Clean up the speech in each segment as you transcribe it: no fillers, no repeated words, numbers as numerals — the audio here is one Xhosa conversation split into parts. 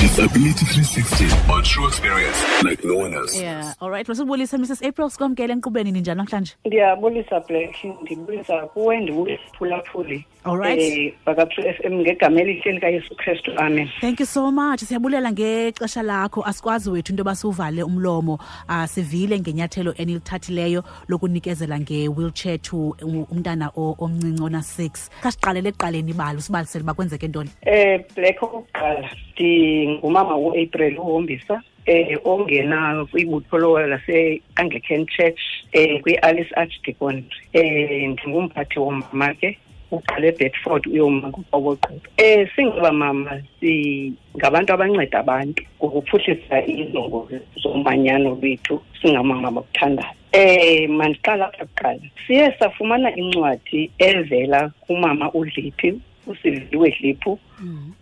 Disability 360 on True Experience like no one else. Yeah, all right. Masibulise Mrs April, sikwamkele enkqubeni, ninjani namhlanje? Ndiyabulisa Black, ndibulisa kuwe, ndibulisa phulaphuli. All right. Baka-True FM ngegama elihle likaYesu Kristu, amen. Thank you so much. Siyabulela ngexesha lakho. Asikwazi wethu into yoba siwuvale umlomo. Sivile ngenyathelo enilithathileyo lokunikezela nge-wheelchair to umntana omncinci ona-6. Khasiqalele ekuqaleni ibali, usibalisele uba kwenzeke ntoni. Black, okokuqala ndingumama uApril uHombisa, ongena kwibutho lase-Anglican Church, kwi-Alice Archdeaconry. Ndingumphathi womama ke, uqale eBedford uyoma kuQoboqobo. Singaba mama singabantu abanceda abantu ngokuphuhlisa iinjongo zomanyano lwethu, singamama bakuthandayo. Mandiqala apha kuqala. Siye safumana incwadi evela kumama uDliphi, uSiviwe Dliphu,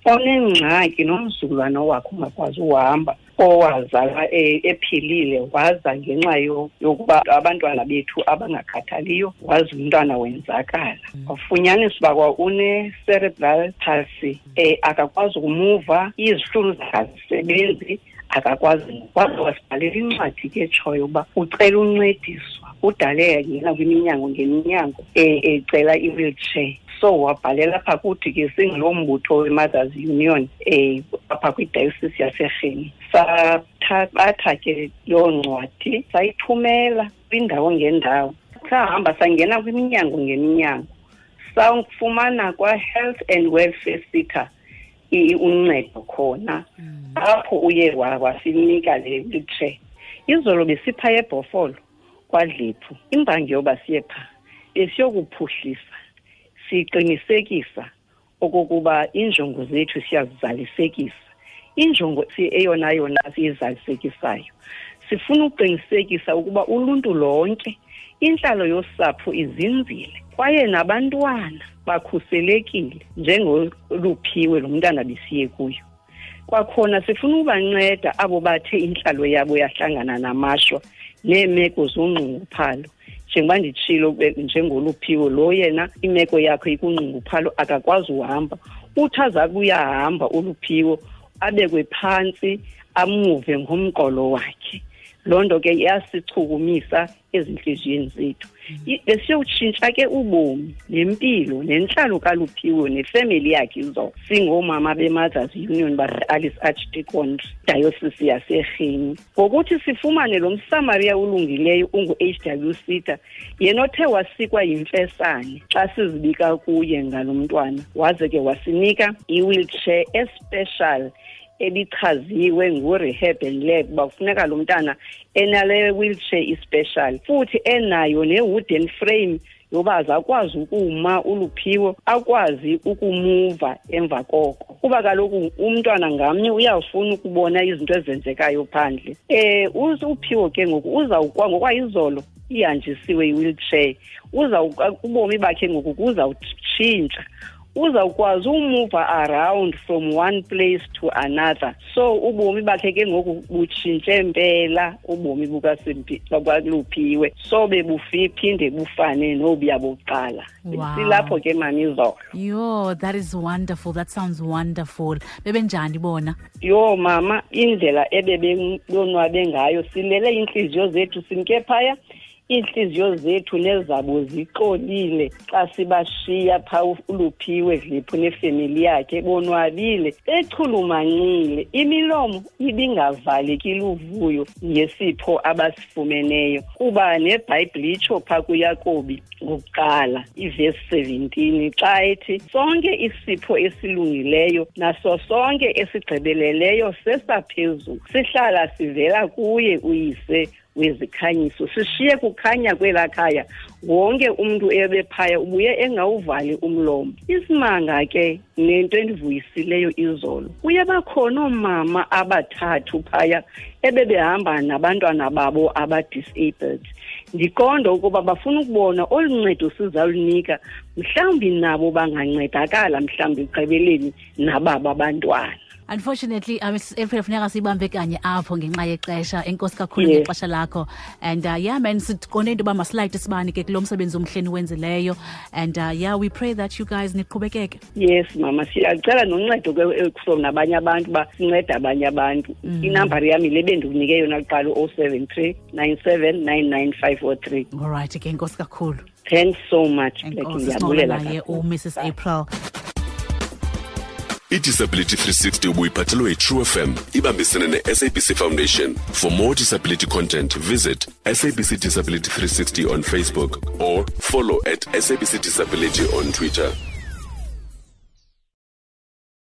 onengxaki nomzukulwana wakhe ungakwazi uhamba, owazalwa ephilile, waza ngenxa yokuba abantwana bethu abangakhathaliyo, waza umntwana wenzakala. Wafunyaniswa uba kwa une-cerebral palsy, akakwazi ukumuva, izihlunu zakhe azisebenzi, akakwazi. Waze wasibhalela incwadi ke etshoyo uba ucela uncediswa, udale yangena kwiminyango ngeminyango, ecela i-wheelchair. So wabhalela apha kuthi ke singuloo mbutho we-Mothers Union, apha kwiDiocese yaseRhini. Sathabatha ke loo ncwadi sayithumela kwindawo ngendawo. Sahamba sangena kwiminyango ngeminyango, safumana kwa-Health and Welfare SETA uncedo khona. Apho uye wasinika le wheelchair. Izolo besipha eBhofolo kwaDliphu. Imbangi yoba siye phaa besiyokuphuhlisa, siqinisekisa okokuba iinjongo zethu siyazizalisekisa. Injongo eyona yona siyizalisekisayo, sifuna ukuqinisekisa ukuba uluntu lonke, intlalo yosapho izinzile, kwaye nabantwana bakhuselekile njengoluphiwe lo mntana besiye kuyo. Kwakhona sifuna ukubanceda abo bathe intlalo yabo yahlangana namashwa neemeko zongqunguphalo. Njengoba nditshilo, njengoluphiwe lo yena imeko yakhe ikungqunguphalo, akakwazi uhamba. Uthi aza kuyahamba uluphiwo, abekwe phantsi, amuve ngomqolo wakhe. Loo nto ke iyasichukumisa ezintliziyweni zethu. Besiyowutshintsha ke ubomi nempilo nentlalo kaLuphiwe nefemeli yakhe izolo. Singoomama be-Mothers Union base-Alice Archdeaconry, Diocese yaseRhini. Ngokuthi sifumane lo Msamaria ulungileyo ungu-H W SETA, yena othe wasikwa yimfesane xa sizibika kuye ngalo mntwana, waze ke wasinika i-wheelchair especial ebichaziwe ngu-Rehab and Lab uba kufuneka lo mntana enale wheelchair ispecial, futhi enayo ne-wooden frame yoba azakwazi ukuma uluphiwo, akwazi ukumuva emva koko. Kuba kaloku umntwana ngamnye uyafuna ukubona izinto ezenzekayo phandle. Uphiwo ke ngoku uzawukwa ngokwayizolo ihanjisiwe i-wheelchair, ubomi bakhe ngoku kuzawutshintsha. Uzawukwazi umuva around from one place to another. So ubomi bakhe ke ngoku butshintshe mpela, ubomi bukaLuphiwe. So bebuphinde bufane nobuya bokuqala. Wow. Silapho ke mani izolo. Yo, that is wonderful. That sounds wonderful. Bebenjani bona? Yo mama, indlela ebebonwabe ngayo, silele iintliziyo zethu simke phaya. Iintliziyo zethu nezabo zixolile xa sibashiya phaa uLuphiwe Dliphu nefemeli yakhe, bonwabile, bechulumancile, imilomo ibingavaleki luvuyo ngesipho abasifumeneyo. Kuba neBhayibhile itsho phaa kuYakobi ngokuqala ivesi 17 xa ethi sonke isipho esilungileyo naso sonke esigqibeleleyo sesaphezulu, sihlala sivela kuye uyise wezikhanyiso. Sishiye kukhanya kwelaa khaya, wonke umntu ebephaya ubuye engawuvali umlomo. Isimanga ke nento endivuyisileyo izolo, kuye bakhona oomama abathathu phaya ebebehamba nabantwana babo aba-disabled. Ndiqonda ukuba bafuna ukubona olu ncedo sizalunika, mhlawumbi nabo bangancedakala mhlawumbi ekugqibeleni nababo abantwana. Unfortunately, Mrs April, funeka siyibambe kanye apho ngenxa yexesha. Enkosi kakhulu ngexesha lakho. And yeah man, siqonde into yoba masilayite isibane ke kulo msebenzi omhle niwenzileyo. And yeah, we pray that you guys niqhubekeke. Yes mama, siyacela noncedo ke from nabanye abantu uba sincede abanye abantu. Inambari yam yile bendikunike yona kuqala, u-073 97 99503. All right ke, enkosi kakhulu. Thanks so much, Black. Enkosi. Ndiyabulela Sincokola naye kakhulu. uMrs April. I-Disability 360 ubuyiphathelwe yi-True FM ibambisene ne-SABC Foundation. For more disability content, visit SABC Disability 360 on Facebook or follow at SABC Disability on Twitter.